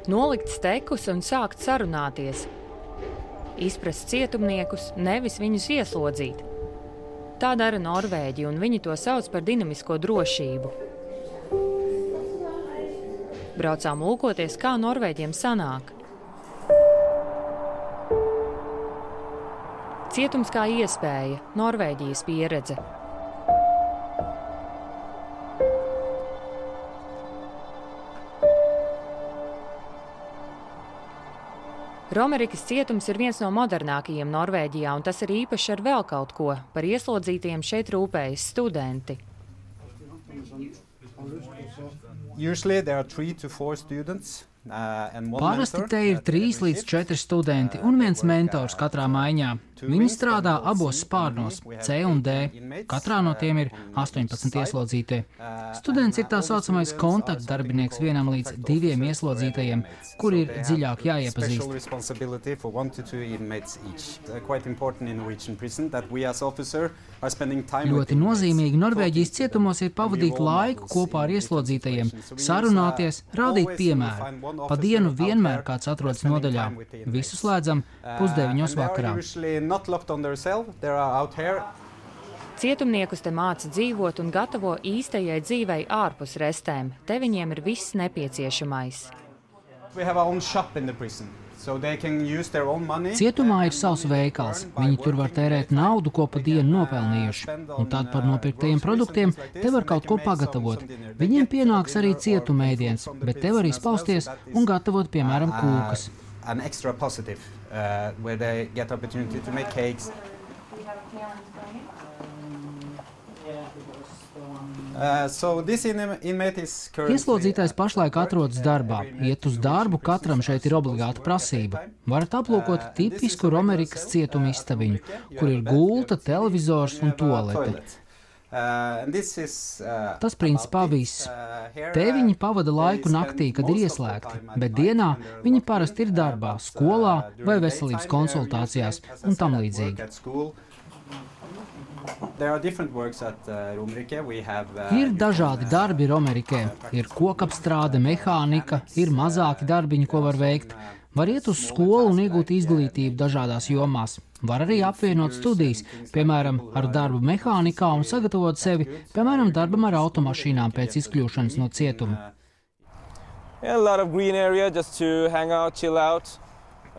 Nolikt stekus un sākt sarunāties. Izprast cietumniekus, nevis viņus ieslodzīt. Tā dara Norvēģi, un viņi to sauc par dinamisko drošību. Braucām lūkoties, kā Norvēģiem sanāk. Cietums kā iespēja, Norvēģijas pieredze. Romerikas cietums ir viens no modernākajiem Norvēģijā, un tas ir īpaši ar vēl kaut ko. Par ieslodzītajiem šeit rūpējas studenti. Usually there are 3 to 4 students. Parasti te ir 3 līdz 4 studenti un viens mentors katrā maiņā. Viņi strādā abos spārnos, C un D. Katrā no tiem ir 18 ieslodzītie. Students ir tā saucamais kontaktdarbinieks 1 līdz 2 ieslodzītajiem, kuri ir dziļāk jāiepazīst. Ļoti nozīmīgi Norvēģijas cietumos ir pavadīt laiku kopā ar ieslodzītajiem, sarunāties, rādīt piemēru. Pa dienu vienmēr kāds atrodas nodaļā. Visu slēdzam 8:30 vakarā. Cietumniekus te māca dzīvot un gatavo īstajai dzīvei ārpus restēm. Te viņiem ir viss nepieciešamais. Cietumā ir savs veikals. Viņi tur var tērēt naudu, ko pa dienu nopelnījuši. Un tad par nopirktajiem produktiem te var kaut ko pagatavot. Viņiem pienāks arī cietuma ēdiens, bet te var izpausties un gatavot, piemēram, kūkas. Ieslodzītais pašlaik atrodas darbā. Iet uz darbu katram šeit ir obligāta prasība. Varat aplūkot tipisku Romerikas cietuma istabiņu, kur ir gulta, televizors un tualete. Tas principā viss. Te viņi pavada laiku naktī, kad ir ieslēgti, bet dienā viņi parasti ir darbā, skolā vai veselības konsultācijās un tam līdzīgi. Ir dažādi darbi Romerikē. Ir kokapstrāde, mehānika, ir mazāki darbiņi, ko var veikt. Var iet uz skolu un iegūt izglītību dažādās jomās. Var arī apvienot studijas, piemēram, ar darbu mehānikā un sagatavot sevi, piemēram, darbam ar automašīnām pēc izkļūšanas no cietuma.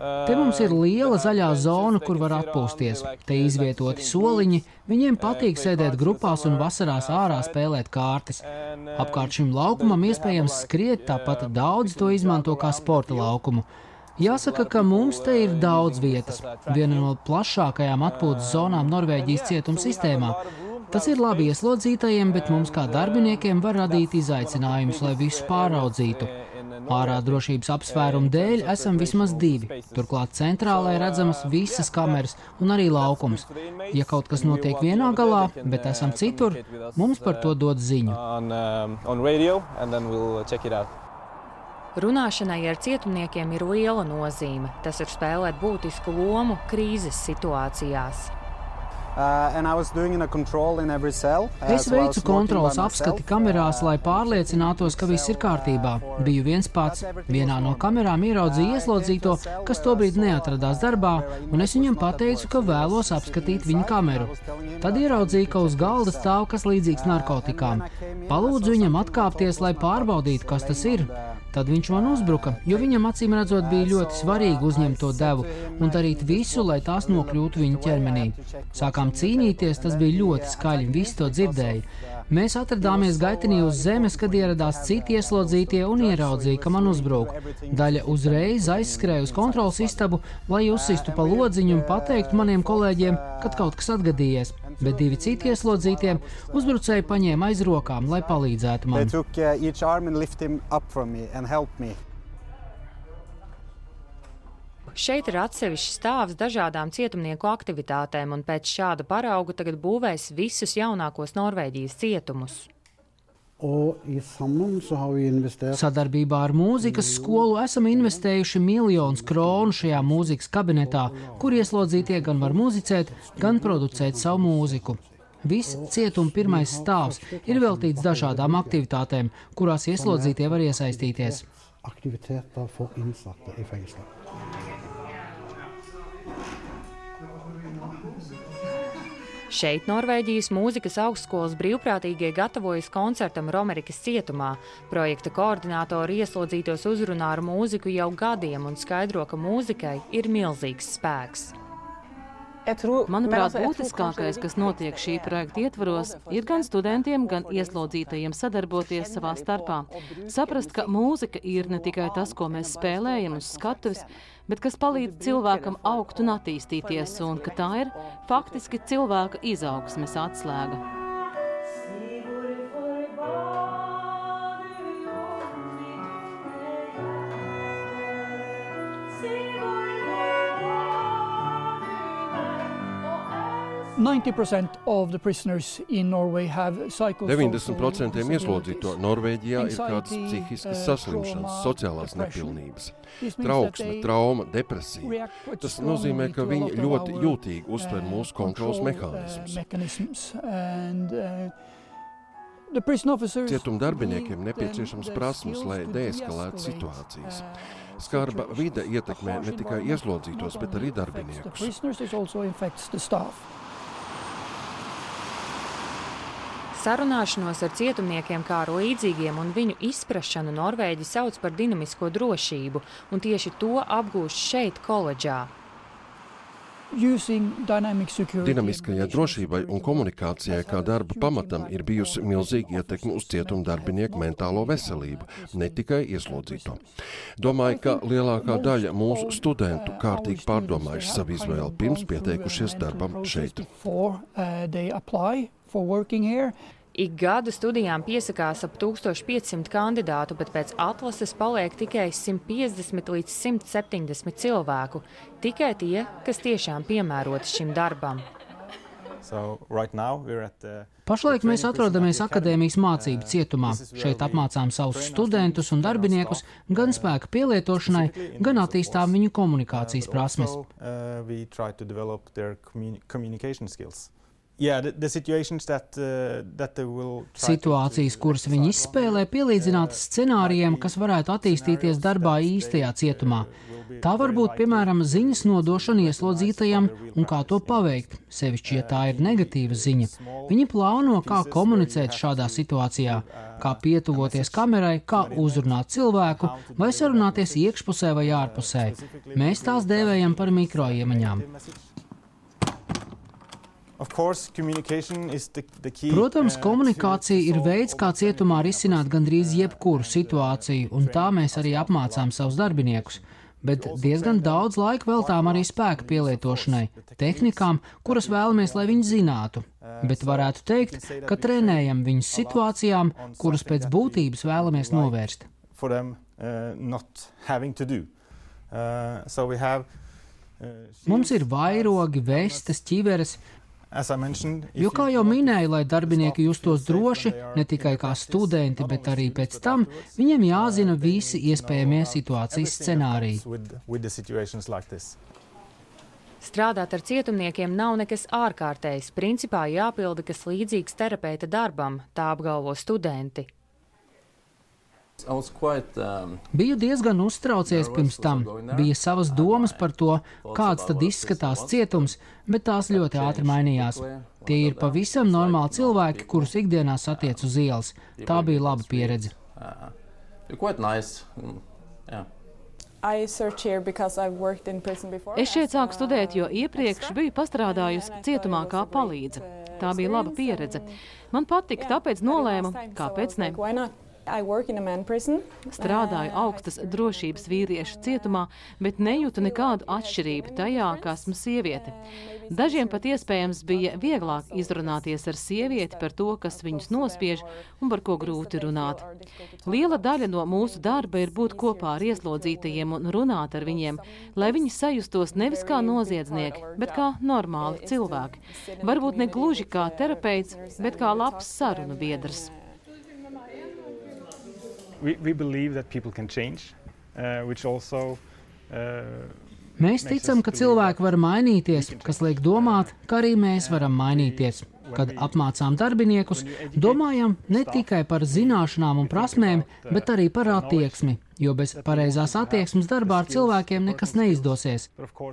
Te mums ir liela zaļā zona, kur var atpūsties. Te izvietoti soliņi, viņiem patīk sēdēt grupās un vasarās ārā spēlēt kārtas. Apkārt šim laukumam iespējams skriet, tāpat daudz to izmanto kā sporta laukumu. Jāsaka, ka mums te ir daudz vietas. Viena no plašākajām atpūtas zonām Norvēģijas cietuma sistēmā. Tas ir labi ieslodzītajiem, bet mums kā darbiniekiem var radīt izaicinājumus, lai visu pāraudzītu. Ārā drošības apsvērumu dēļ esam vismaz 2. Turklāt centrālē redzamas visas kameras un arī laukums. Ja kaut kas notiek vienā galā, bet esam citur, mums par to dod ziņu. Runāšanai ar cietumniekiem ir liela nozīme. Tas ir spēlēt būtisku lomu krīzes situācijās. Es veicu kontroles apskati kamerās, lai pārliecinātos, ka viss ir kārtībā. Biju viens pats. Vienā no kamerām ieraudzīju ieslodzīto, kas tobrīd neatradās darbā, un es viņam pateicu, ka vēlos apskatīt viņa kameru. Tad ieraudzīju, ka uz galda stāv kas līdzīgs narkotikām. Palūdzu viņam atkāpties, lai pārbaudītu, kas tas ir. Tad viņš man uzbruka, jo viņam acīm redzot bija ļoti svarīgi uzņemt to devu un darīt visu, lai tās nokļūtu viņa ķermenī. Sākām cīnīties, tas bija ļoti skaļi, visi to dzirdēja. Mēs atradāmies gaitenī uz zemes, kad ieradās citi ieslodzītie un ieraudzīja, ka man uzbruk. Daļa uzreiz aizskrēja uz kontrolas istabu, lai uzsistu pa lodziņu un pateiktu maniem kolēģiem, kad kaut kas atgadījies. Bet 2 citi ieslodzītie uzbrucēji paņēma aiz rokām, lai palīdzētu man. Šeit ir atsevišķs stāvs dažādām cietumnieku aktivitātēm, un pēc šāda parauga tagad būvēs visus jaunākos Norvēģijas cietumus. Sadarbībā ar mūzikas skolu esam investējuši 1 000 000 kronu šajā mūzikas kabinetā, kur ieslodzītie gan var muzicēt, gan producēt savu mūziku. Viss cietuma pirmais stāvs ir veltīts dažādām aktivitātēm, kurās ieslodzītie var iesaistīties. aktiviteter for innsatte i fengsler. Šeit Norvēģijas mūzikas augstskolas brīvprātīgie gatavojas koncertam Romerikas cietumā. Projekta koordinātori ieslodzītos uzrunā ar mūziku jau gadiem un skaidro, ka mūzikai ir milzīgs spēks. Manuprāt, būtiskākais, kas notiek šī projekta ietvaros, ir gan studentiem, gan ieslodzītajiem sadarboties savā starpā. Saprast, ka mūzika ir ne tikai tas, ko mēs spēlējam uz skatuves, bet kas palīdz cilvēkam augt un attīstīties, un ka tā ir faktiski cilvēka izaugsmes atslēga. Of the prisoners in Norway have 90% ieslodzīto Norvēģijā ir kādas psihiskas saslimšanas, sociālās nepilnības, trauksme, trauma, depresija. Tas nozīmē, ka viņi ļoti jūtīgi uztver mūsu kontrolas mehānismus. Cietuma darbiniekiem nepieciešams prasmes, lai deeskalētu situācijas. Skarba vide ietekmē ne tikai ieslodzītos, bet arī darbiniekus. Sarunāšanos ar cietumniekiem kā ar līdzīgiem un viņu izprašanu Norvēģi sauc par dinamisko drošību, un tieši to apgūst šeit koledžā. Dinamiskajai drošībai un komunikācijai kā darba pamatam ir bijusi milzīga ietekme uz cietuma darbinieku mentālo veselību, ne tikai ieslodzīto. Domāju, ka lielākā daļa mūsu studentu kārtīgi pārdomājuši savu izvēli pirms pieteikušies darbam šeit. Ik gadu studijām piesakās ap 1500 kandidātu, bet pēc atlases paliek tikai 150 līdz 170 cilvēku. Tikai tie, kas tiešām piemēroti šim darbam. Pašlaik mēs atrodamies akadēmijas mācību cietumā. Šeit apmācām savus studentus un darbiniekus gan spēka pielietošanai, gan attīstām viņu komunikācijas prasmes. Situācijas, kuras viņi izspēlē, pielīdzinātas scenārijiem, kas varētu attīstīties darbā īstajā cietumā. Tā var būt, piemēram, ziņas nodošana ieslodzītajam un kā to paveikt, sevišķi, ja tā ir negatīva ziņa. Viņi plāno, kā komunicēt šādā situācijā, kā pietuvoties kamerai, kā uzrunāt cilvēku vai sarunāties iekšpusē vai ārpusē. Mēs tās dēvējam par mikroiemaņām. Protams, komunikācija ir veids, kā cietumā risināt gandrīz jebkuru situāciju, un tā mēs arī apmācām savus darbiniekus. Bet diezgan daudz laika veltām arī spēka pielietošanai, tehnikām, kuras vēlamies, lai viņi zinātu. Bet varētu teikt, ka trenējam viņus situācijām, kuras pēc būtības vēlamies novērst. Mums ir vairogi, vestes, ķiveres. Jo, kā jau minēju, lai darbinieki justos droši, ne tikai kā studenti, bet arī pēc tam, viņiem jāzina visi iespējamie situācijas scenāriji. Strādāt ar cietumniekiem nav nekas ārkārtējs, principā jāpilda kas līdzīgs terapeita darbam, tā apgalvo studenti. Biju diezgan uztraucies pirms tam. Bija savas domas par to, kāds tad izskatās cietums, bet tās ļoti ātri mainījās. Tie ir pavisam normāli cilvēki, kurus ikdienā satiec uz ielas. Tā bija laba pieredze. Es šeit sāku studēt, jo iepriekš biju pastrādājusi cietumā kā palīdze. Tā bija laba pieredze. Man patika, tāpēc nolēmu, kāpēc ne. Strādāju augstas drošības vīriešu cietumā, bet nejūtu nekādu atšķirību tajā, ka esmu sieviete. Dažiem pat iespējams bija vieglāk izrunāties ar sievieti par to, kas viņus nospiež un par ko grūti runāt. Liela daļa no mūsu darba ir būt kopā ar ieslodzītajiem un runāt ar viņiem, lai viņi sajustos nevis kā noziedznieki, bet kā normāli cilvēki. Varbūt ne gluži kā terapeits, bet kā labs sarunu biedrs. We believe that people can change, which also Mēs ticam, ka cilvēki var mainīties, kas liek domāt, ka arī mēs varam mainīties. Kad apmācām darbiniekus, domājam ne tikai par zināšanām un prasmēm, bet arī par attieksmi, jo bez pareizās attieksmes darbā ar cilvēkiem nekas neizdosies.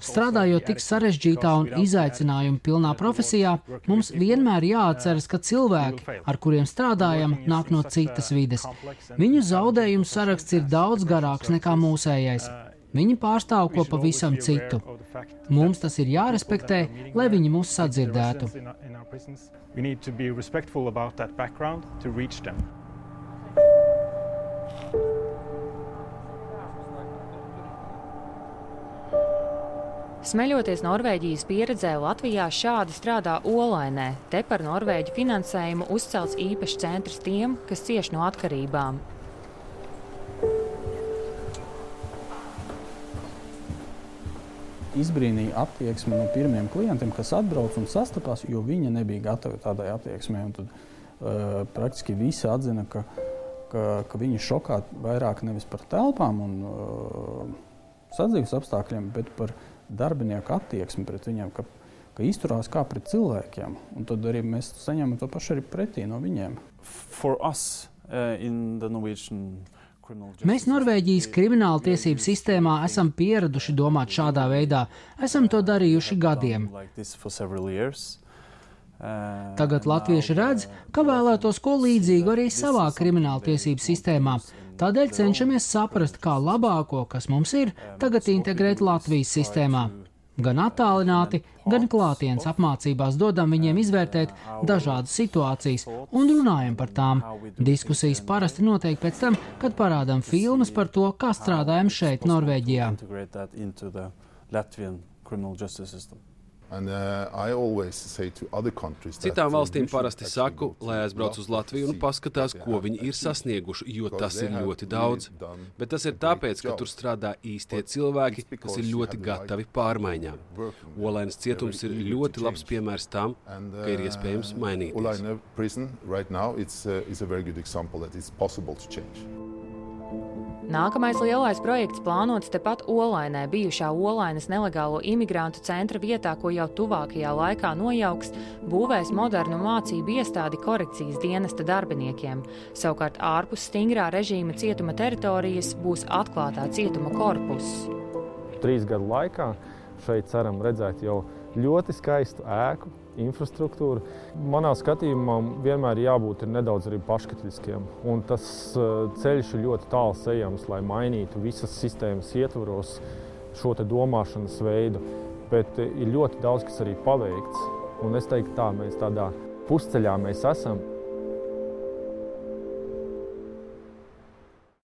Strādājot tik sarežģītā un izaicinājuma pilnā profesijā, mums vienmēr jāatceras, ka cilvēki, ar kuriem strādājam, nāk no citas vides. Viņu zaudējumu saraksts ir daudz garāks nekā mūsējais. Viņi pārstāv ko pavisam citu. Mums tas ir jārespektē, lai viņi mūs sadzirdētu. Smeļoties Norvēģijas pieredzē, Latvijā šādi strādā Olainē. Te par Norvēģu finansējumu uzcelts īpašs centrs tiem, kas cieš no atkarībām. Izbrīnīja attieksmi no pirmiem klientiem, kas atbrauc un sastapās, jo viņi nebija gatavi tādai attieksmei. Un tad praktiski visi atzina, ka viņi šokā vairāk nevis par telpām un sadzīves apstākļiem, bet par darbinieku attieksmi pret viņiem, ka izturās kā pret cilvēkiem. Un tad arī mēs saņemam to pašu arī pretī no viņiem. For us, in the Norwegian Mēs Norvēģijas krimināla tiesību sistēmā esam pieraduši domāt šādā veidā. Esam to darījuši gadiem. Tagad latvieši redz, ka vēlētos ko līdzīgu arī savā krimināla tiesību sistēmā. Tādēļ cenšamies saprast, kā labāko, kas mums ir, tagad integrēt Latvijas sistēmā. Gan attālināti, gan klātienes apmācībās dodam viņiem izvērtēt dažādas situācijas un runājam par tām. Diskusijas parasti notiek pēc tam, kad parādām filmas par to, kā strādājam šeit, Norvēģijā. Citām valstīm parasti saku, lai aizbrauc uz Latviju un paskatās, ko viņi ir sasnieguši, jo tas ir ļoti daudz. Bet tas ir tāpēc, ka tur strādā īstie cilvēki, kas ir ļoti gatavi pārmaiņām. Olainas cietums ir ļoti labs piemērs tam, ka ir iespējams mainīties. Nākamais lielais projekts plānots tepat Olainē, bijušā Olainas nelegālo imigrantu centra vietā, ko jau tuvākajā laikā nojauks, būvēs modernu mācību iestādi korekcijas dienesta darbiniekiem. Savukārt ārpus stingrā režīma cietuma teritorijas būs atklātā cietuma korpuss. 3 gadu laikā šeit ceram redzēt jau ļoti skaistu ēku, infrastruktūru. Manā skatījumā vienmēr jābūt nedaudz arī paškritiskiem. Un tas ceļš ir ļoti tāls ejams, lai mainītu visas sistēmas ietvaros šo te domāšanas veidu. Bet ir ļoti daudz, kas arī paveikts. Un es teiktu tā, mēs tādā pusceļā mēs esam.